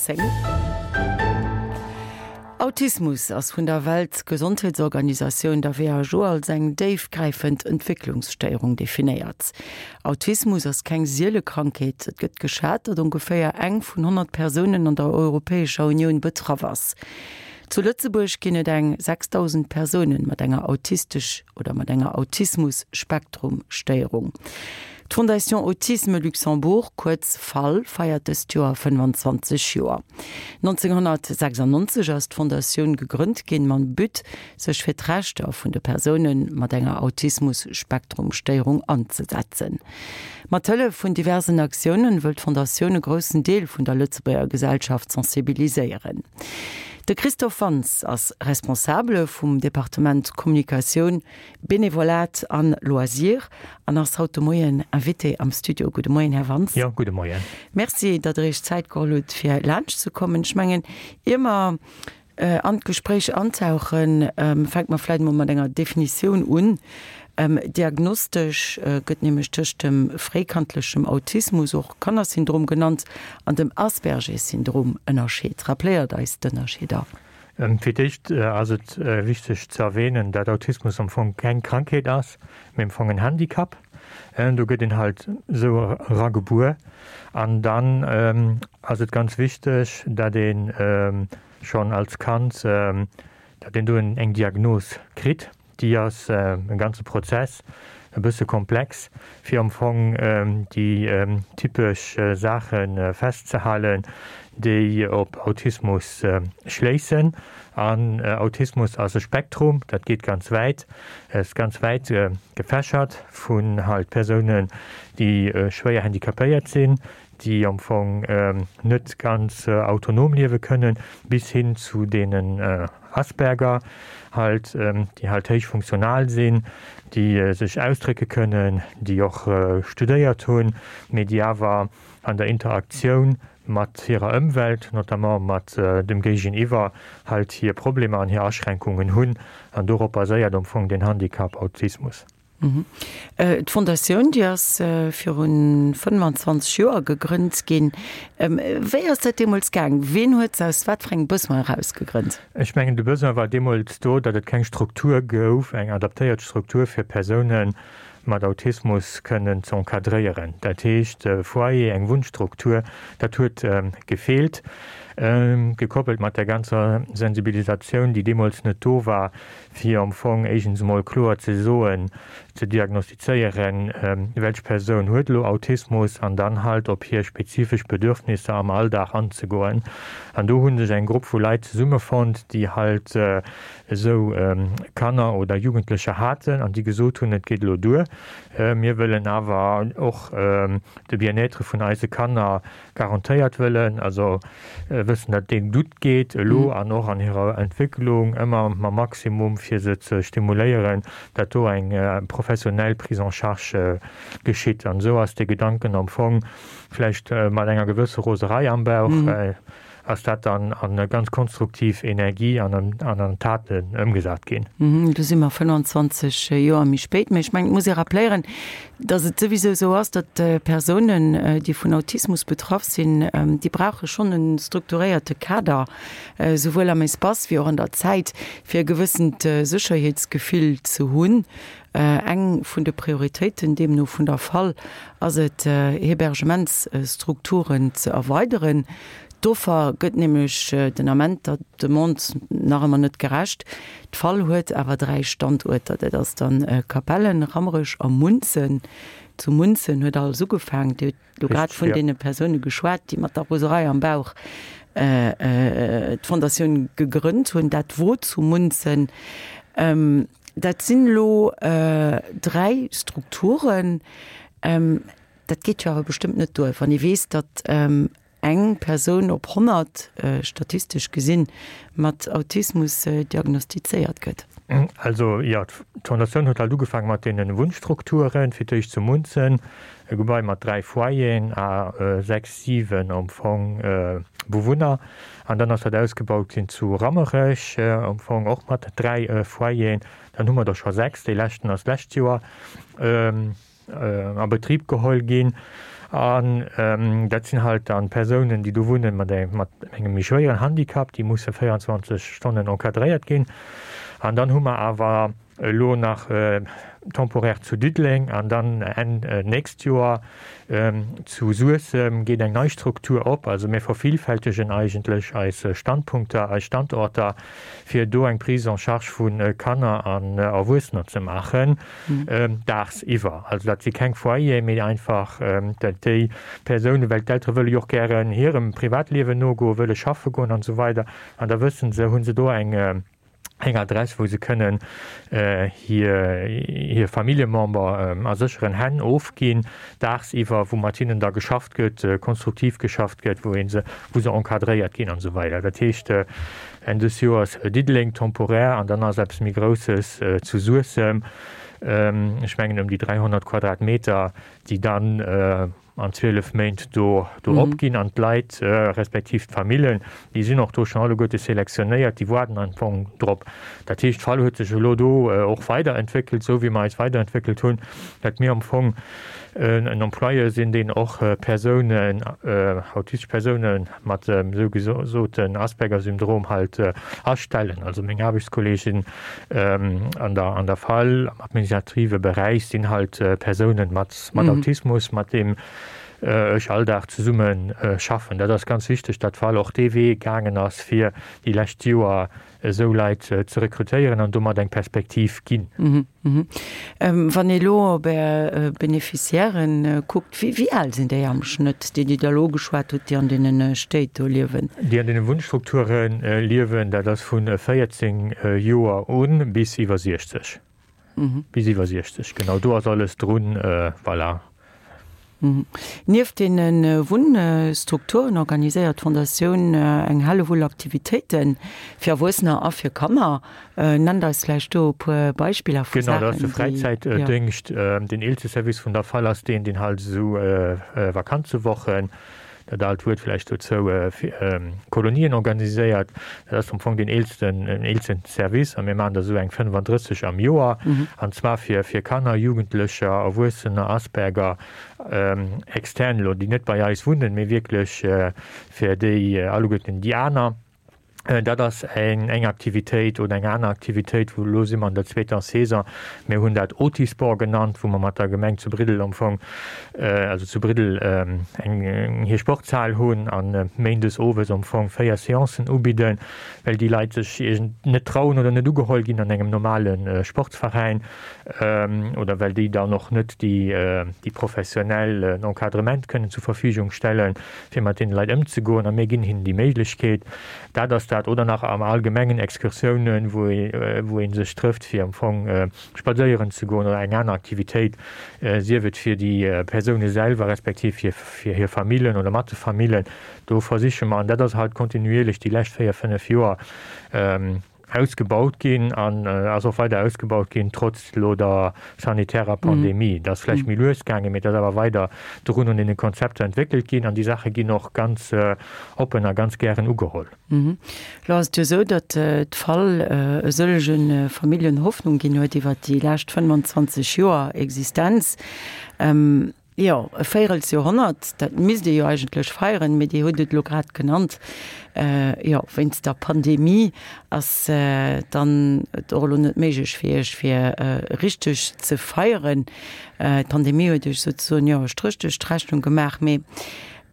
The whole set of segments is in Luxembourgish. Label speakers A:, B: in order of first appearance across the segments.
A: 10. Autismus ass vun der Weltgesondheetsorganisatioun, der WHO, als eng déifgräifend Entwécklungsstéierung definéiert. Autismus ass keng siele Krankheet. Et gëtt geschat, datt ongeféier eng vun 100 Persounen an der Europäescher Unioun betraff ass. Zu Lëtzebuerg ginn et eng 6.000 Persounen mat enger autistesch oder mat enger Autismus-Spektrum-Stéierung. D'Fondation Autisme Luxembourg, kuerz fal, feiert dëst Joer 25 Joer. 1996 ass d'Fondatioun gegrënnt ginn, mam But, sech fir d'Rechter vun de Persoune mat enger Autismus-Spektrum-Stéierung anzesetzen. Mat Hëllef vun diversen Aktiounen wëll d'Fondatioun e groussen Deel vun der Lëtzebuerger Gesellschaft sensibiliséieren. De Christophe Wantz ass Responsabele vum Departement Kommunikatioun, Benevolat an Loisirs an ass haut de Moien Invité am Studio. Gudde Moien, Här Wantz.
B: Jo, gudde Moien.
A: Merci, datt Der Iech Zäit geholl hutt, fir laanscht ze kommen. Ech mengen, ier mer an d'Gespréich antauchen, fänke mer vläicht emol mat enger Definitioun un. Diagnostesch gëtt nämlech tëscht dem fréikandlechem Autismus, och Kannersyndrom genannt, an dem Asperger-Syndrom ënnerscheet. Rappléiert eis d'Ënnerscheeder.
B: Fir d'éischt ass et wichteg ze erwähnen, dat Autismus am Fong keng Krankheet ass, mee am Fong en Handicap. Do gëtt een halt esou eragebuer. An dann ass et ganz wichteg, dat ee schonn als Kand, dat een do eng Diagnos kritt. Déi ass e ganze Prozess, e bësse komplex, fir am Fong déi typesch Saache festzehalen, déi op Autismus schléissen. An Autismus ass e Spektrum, dat geet ganz wäit, ass ganz wäit gefächert, vun halt Persounen, déi schwéier handicapéiert sinn, déi am Fong net ganz autonom liewe kënnen, bis hin zu deenen Asperger halt, déi halt héich funktional sinn, déi sech ausdrécke kënnen, déi och studéiert hunn, mee déi awer an der Interaktioun mat hirer Ëmwelt, notamment mat dem Géigeniwwer, halt hir Problemer an hir Aschränkungen hunn. An dorop baséiert am Fong den Handicap Autismus.
A: D'Fondatioun, déi ass viru 25 Joer gegrënnt ginn. Wéi ass dat deemools gaang? Ween huet se aus wat fir engem Besoin eraus gegrënnt?
B: Ech mengen, de Besoin war deemools do, datt et keng Struktur gouf, eng adaptéiert Struktur fir Persoune mat Autismus kënnen ze encadréieren. Dat heescht, e Foyer, eng Wunnstruktur, dat huet gefeelt, gekoppelt mat der ganzer Sensibilisatioun, déi deemools net do war, fir am Fong éischens emol kloer ze soen, ze diagnostizéieren, welch Persoun huet elo Autismus an dann halt op hir spezifesch Bedürfnisser am Alldag anzegoen. An do hu sech eng Grupp vu Leit zesummefonnt, déi halt esou Kanner oder Jugendlecher haten an déi gesot hunn, et geet elo duer, mir wëllen awer och de Bien-être vun eise Kanner garantéiert wëllen, also wëssen, datt deem gutt geet elo an och an hirer Entwécklung, ëmmer mam Maximum fir se ze stimuléieren, datt do eng professionell Prise en charge geschitt. An esou ass dee Gedanken am Fong, vläicht mat enger gewësse Roserei am Bauch, ass dat dann an ganz konstruktiv Energie an an Taten ëmgesat ginn.
A: Do si mer 25 Joer méi spéit. Mä ech mengen, et muss ee rappléieren, datt et souwisou esou ass, datt Persounen, déi vun Autismus betraff sinn, déi brauche schonn e strukturéierte Kader, souwuel am Espace wéi och an der Zäit, fir e gewëssent Sécherheetsgefill ze hunn. Eng vun de Prioritéiten deemno vun der fal ass et, Hebergementsstrukturen ze erweideren. D'Offer gëtt nämlech den Ament der Demande nach ëmmer net gerecht. D'fal huet awer 3 Standuerter, dat ass dann Capellen, Rammerech a Munzen. Zu Munzen huet alles ugefaangen. Dir hutt elo grad vun deene Persoune geschwat, déi mat der Roserei am Bauch d'Fondatioun gegrënnt hunn. Dat wor zu Munzen. Dat sinn elo 3 Strukturen. Dat geet jo awer bestëmmt net duer, wann ee weess, datt eng Persoun op 100, statistesch gesinn, mat Autismus diagnostizéiert gëtt.
B: Also jo, d'Fondatioun huet halt ugefaange mat deene Wunnstrukturen, fir d'éischt zu Munzen, e Gebai mat 3 Foyeren a 6, 7 am Fong Bewunner. An dann ass dat ausgebaut ginn zu Rammerech, am Fong och mat 3 Foyeren. Dann hu mer der scho 6, dee leschten ass d'lescht Joer a Betrib geholl ginn. An dat sinn halt dann Persounen, déi do wunnen mat engem méi schwéieren Handicap, déi musse 24 Stonnen encadréiert ginn. An dann hu mer awer elo nach temporaire zu Diddeleng an dann Enn nächst Joer zu Suessem geet eng nei Struktur op. Also mir vervielfältegen eigentlech eis Standpunkter, eis Standorter, fir do eng Prise en charge vu Kanner an Erwuessener ze maachen, daagsiwwer. Also dat si keng Foyeren, mee einfach dat déi Persounen, well d'Eltere wëlle jo och gären hirem Privatliewen nogoen, wëlle schaffe goen an esou weider, an da wësse se, hu se do eng eng Adress, wou se kënnen hir hir Familljemember a sécheren Hänn ofginn, daagsiwwer, wou mat hinnen da geschafft gëtt, konstruktiv geschafft gëtt, wou ee se, wou se encadréiert ginn an esou weider. Dat heescht, Enn des Joers Diddeleng temporär an dann ass eppes méi Grousses zu Suessem, ech mengen ëm déi 300 Quadratmeter, déi dann an 12 Méint do do opginn an d'Leit respektiv d'Famillen, déi sinn och do schonn alleguerte selektionéiert, déi waarden am Fong drop. Dat heescht, d'Fall huet sech elo do och weiderentwéckelt, esou wéi mer eis weiderentwéckelt hunn, datt mir am Fong en Employeur sinn, deen och Persounen, autistesch Persoune mat dem sougesoten Asperger-Syndrom halt astellen. Also meng Aarbechtskolleegen an der an der Fall am administrative Beräich sinn halt Persounen mat mat Autismus, mat deem ech all Dag zesumme schaffen. Dat ass ganz wichteg, datt d'Fall och dee Wee gaangen ass, fir déi lescht Joer esou Leit ze rekrutéieren an domat eng Perspektiv ginn.
A: Wann ee elo op Är Beneficiairen kuckt, wéi al sinn déi am Schnëtt, déi Dir da elo ugeschwat hutt, déi an deene Stéit do liewen?
B: Déi an deene Wunnstrukture liewen, dat ass vu 14 Joer u bis iwwer 60. Bis iwwer 60, genau, do ass alles drun, voilà.
A: Nieft deene Wunnstrukturen organiséiert d'Fondatioun eng Hellewull Aktivitéite fir Erwuessener a fir Kanner. Nennt eis vläicht do e puer Beispiller
B: vu Saachen, déi. Genau, dat ass de Fräizäitdéngscht. Den eelste Service vun der Fal ass deen, deen halt esou Vakanzewochen, dat aalt Wuert vläicht dozou, Kolonien organiséiert. Dat ass am Fong deen eelsten, eelsten Service a mir maachen der esou eng 35 am Joer, an zwar fir, fir Kanner, Jugendlecher, Erwuessener, Asperger, extern elo, déi net bei eis wunnen, mee wierklech fir déi alleguerten déi aner. Dat ass eng eng Aktivitéit oder eng aner Aktivitéit, wou elo si mer an der zweeter Saison, mir hunn dat Otisport genannt, wou mer mat der Gemeng zu Briddel am Fong, also zu Briddel eng hir Sportshal hunn a méindes owes am Fong 4 Seancen ubidden, well déi Leit sech iergend net trauen oder net ugeholl ginn an engem normale Sportsveräin oder well déi dann och net déi déi professionell Encadrement kënnen zur Verfügung stellen. fir mat deene Leit ëmzegoen, a mir ginn hinnen déi Méiglechkeet. Dat ass dat. Oder nach am Allgemengen Excursiounen, wou ee sech trëfft, fir am Fong spadséieren ze goen oder eng aner Aktivitéit, sief et fir déi Persoune selwer respektiv fir hir Famillen oder mat de Famillen. Do versiche mer, an dat ass halt kontinuierlech déi lescht 4, 5 Joer, Ausgebaut ginn an ass och weider ausgebaut ginn, trotz elo der sanitärer Pandemie. Et ass vläicht méi lues gaangen, mee et ass awer weider drun un deene Konzepter entwéckelt ginn an déi Saache ginn och ganz oppen a ganz gären ugeholl.
A: Elo ass et jo esou, datt d'Fall e sëllege Familljen Hoffnung ginn huet iwwert déi lescht 25 Joer Existenz. Jo, e Véirelsjoerhonnert, dat misst ee jo eigentlech feieren, mee Dir hutt et elo grad genannt, jo, wéinst der Pandemie ass dann et och elo net méiglech fir Iech, fir richteg ze feieren. D'Pandemie huet Iech souzesoen, jo, e Stréch duerch d'Rechnung gemaach. Mee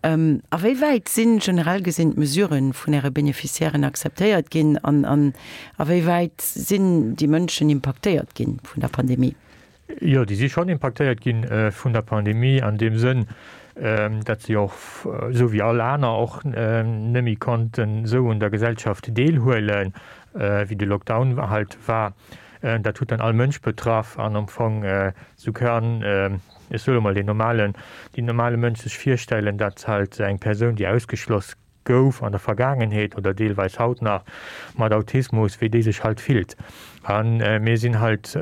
A: a wéi wäit si generell gesinn d'Mesurë vun Äre Beneficiairen akzeptéiert ginn an a wéi wäit sinn déi Mënschen impaktéiert gi vun der Pandemie?
B: Jo, déi si schonn impaktéiert gi vun der Pandemie an deem Sënn, datt si och, esou wéi all aner och, net méi konnten esou un der Gesellschaft deelhuelen, wéi de Lockdown halt war. Dat huet dann all Mënsch betraff an am Fong, esou kann, ech soe mol, deen normalen, deen normale Mënsch sech virstellen, datt halt eng Persoun, déi ausgeschloss gouf an der Vergaangenheet oder deelweis haut nach mat Autismus, wéi déi sech halt fillt. A mir sinn halt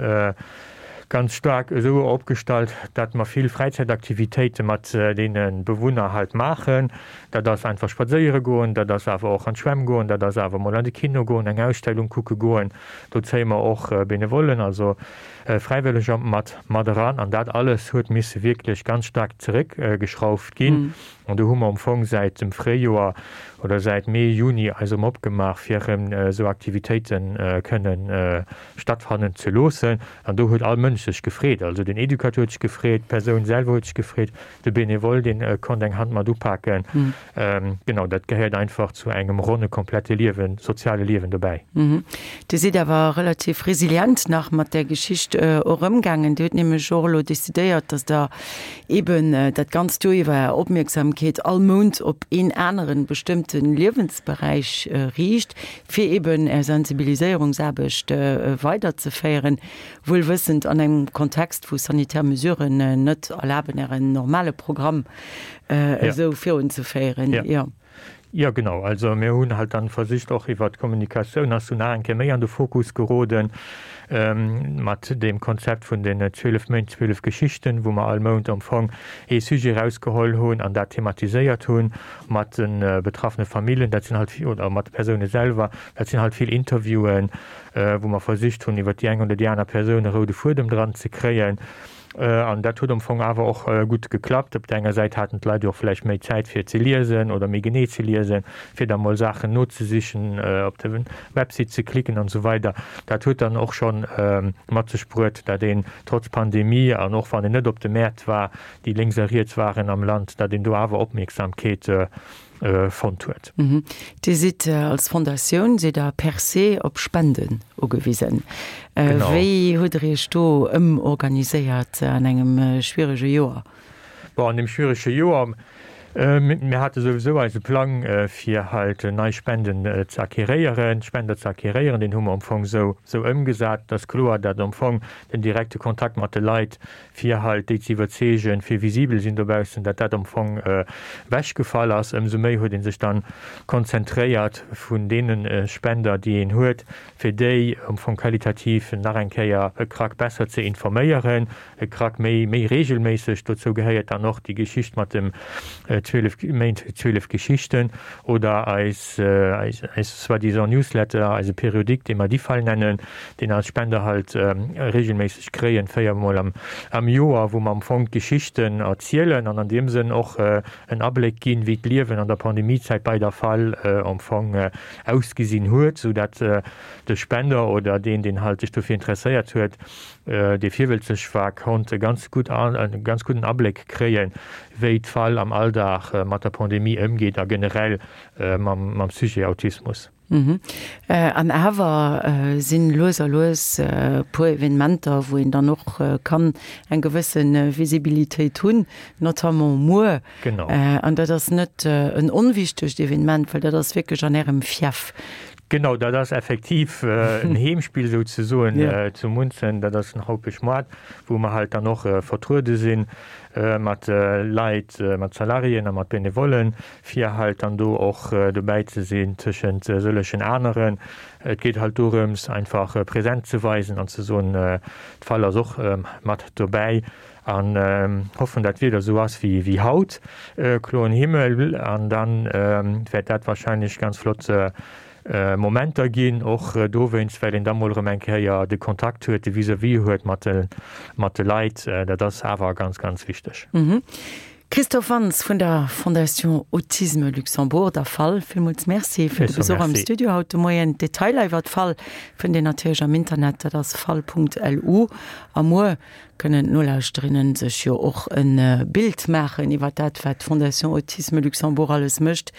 B: ganz staark esou opgestallt, datt mer vill Fräizäitaktivitéite mat deene Bewunner halt maachen. Dat ass einfach spadséiere goen, dat ass awer och an d'Schwämm goen, dat ass awer mol an de Kino goen, eng Ausstellung kucke goen. Do zéie mer och Benevollen, also. Fräiwëlleger mat mat eran an dat alles huet misse wierklech ganz staark zeréckgeschrauft ginn. An do hu mer am Fong säit dem Fréijoer oder säit Mee, Juni eis erëm opgemaach, fir erëm esou Aktivitéite kënnen stattfannen ze loossen. An do huet all Mënsch sech gefreet. Also den Educateur huet sech gefreet, d'Persoun selwer huet sech gefreet, de Benevole, dee konnt eng Hand mat upaken. Genau, dat gehéiert einfach zu engem ronne, komplette Liewen, soziale Liewen dobäi.
A: Dir sidd awer relativ resilient nach mat där Geschicht och ëmgaangen. Dir hutt nämlech och elo decidéiert, datt Der eben dat ganzt Joer iwwer Är Opmierksamkeet all Mount op een aneren bestëmmte Liewensberäich riicht, fir eben Är Sensibiliséierungsaarbecht weiderzeféieren, wuel wëssend an engem Kontext, wou sanitär Mesuren net erlaben, Ären normale Programm esou virunzeféieren.
B: Jo. Jo, genau. Also mir hunn halt dann versicht och iwwert d'Kommunikatioun ass du nach eng Kéier méi an de Fokus geroden mat deem Konzept vun den 12 Méint, 12 Geschichten, wou mer all Mount am Fong ee Sujet erausgeholl hunn an dat thematiséiert hunn mat de betraffene Familljen, dat sinn halt, oder mat de Persoune selwer. Dat sinn halt vill Interviewen, wou mer versicht hunn iwwert déi eng oder déi aner Persoun e roude Fuedem dran ze kréien. An dat huet am Fong awer och gutt geklappt. Op der enger Säit haten d'Leit jo och vläicht méi Zäit fir ze liesen oder méi genee ze liesen, fir da mol Saachen nozesichen, op de Website ze klicken an esou weider. Dat huet dann och scho mat sech bruet, dat een trotz Pandemie an och wann een net op de Mäert war, déi lénks a riets waren am Land, dat een do awer Opmierksamkeet fonnt huet.
A: Dir sidd als Fondatioun, sidd Der per se op Spenden ugewisen. Wéi hutt Der Iech do ëmorganiséiert an engem schwierege Joer?
B: Bon, an deem schwierege Joer, mir hate souwisou eise Plang, fir halt nei Spenden ze acquéréieren, Spender ze acquéréieren, deen hu mer am Fong esou ëmgesat. Et ass kloer, datt am Fong den direkte Kontakt mat de Leit fir halt déi ze iwwerzeegen, fir visibel sinn dobaussen, dat dat am Fong ewechgefall ass. Ëmsou méi huet ee sech dann konzentréiert vun deene Spender, déi een huet, fir déi am Fong qualitativ nach eng Kéier e Krack besser ze informéieren, e Krack méi, méi regelméisseg. Dozou gehéiert dann och déi Geschicht mat dem 12 Méint, 12 Geschichten oder eis, eis soi-disant Newsletter, eise Periodique, dee mer DIFAL nennen, deen eis Spender halt regelméisseg kréien, véiermol am Joer, wou mer am Fong d'Geschichten erzielen an an deem Sënn och en Abléck ginn, wéi d'Liewen an der Pandemiezäit bei der fal am Fong ausgesinn huet, sou dat de Spender oder deen, deen halt sech dofir interesséiert huet, dee virwëlzeg war, konnt e ganz gutt, e ganz gudden Abléck kréien, wéi d'fal am Alldag mat der Pandemie ëmgeet a generell mam Sujet Autismus.
A: An awer sinn lues a lues e puer Evenementer, wou een dann och kann eng gewësse Visibilitéit hunn, notamment muer.
B: Genau.
A: An dat ass net en onwichtegt Evenement, well dat ass wierklech an Ärem Fief.
B: Genau, dat ass effektiv en Heemspill souzesoen zu Munzen. Dat ass den Haupeschmoart, wou mer halt dann och vertruede sinn mat Leit, mat Salariéen a mat Benevollen, fir halt dann do och dobäi ze sinn tëschent sëllegen aneren. Et geet halt dorëms, einfach Präsenz ze weisen an ze soen, d'Fall ass och mat dobäi an hoffen, dat d'Wieder esou ass wéi haut, kloen Himmel, an da wäert dat wahrscheinlech ganz flott Momenter ginn, och dowéinst, well een da mol erëm eng Kéier de Kontakt huet, de Vis-à-vis huet mat de Leit. Dat ass awer ganz, ganz wichteg.
A: Christophe Wantz vun der Fondation Autisme Luxembourg, der fal, villmools Merci fir de Besuch am Studio haut de Moien. D'Detailer iwwer d'fal fënnt een natierlech am Internet, dat ass fal.lu. A muer kënnen d'Nolauschterinnen sech jo och e Bild maachen iwwer dat, wat d'Fondation Autisme Luxembourg alles mécht.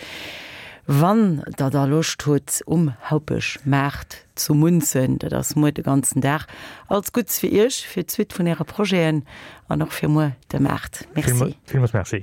A: Wann der da Loscht hutt, um Haupeschmaart zu Munzen, dat ass muer de ganzen Dag. Alles Gutts fir Iech, fir d'Suite vun Äre Projeten an och fir muer de Maart. Merci.
B: Villmools Merci.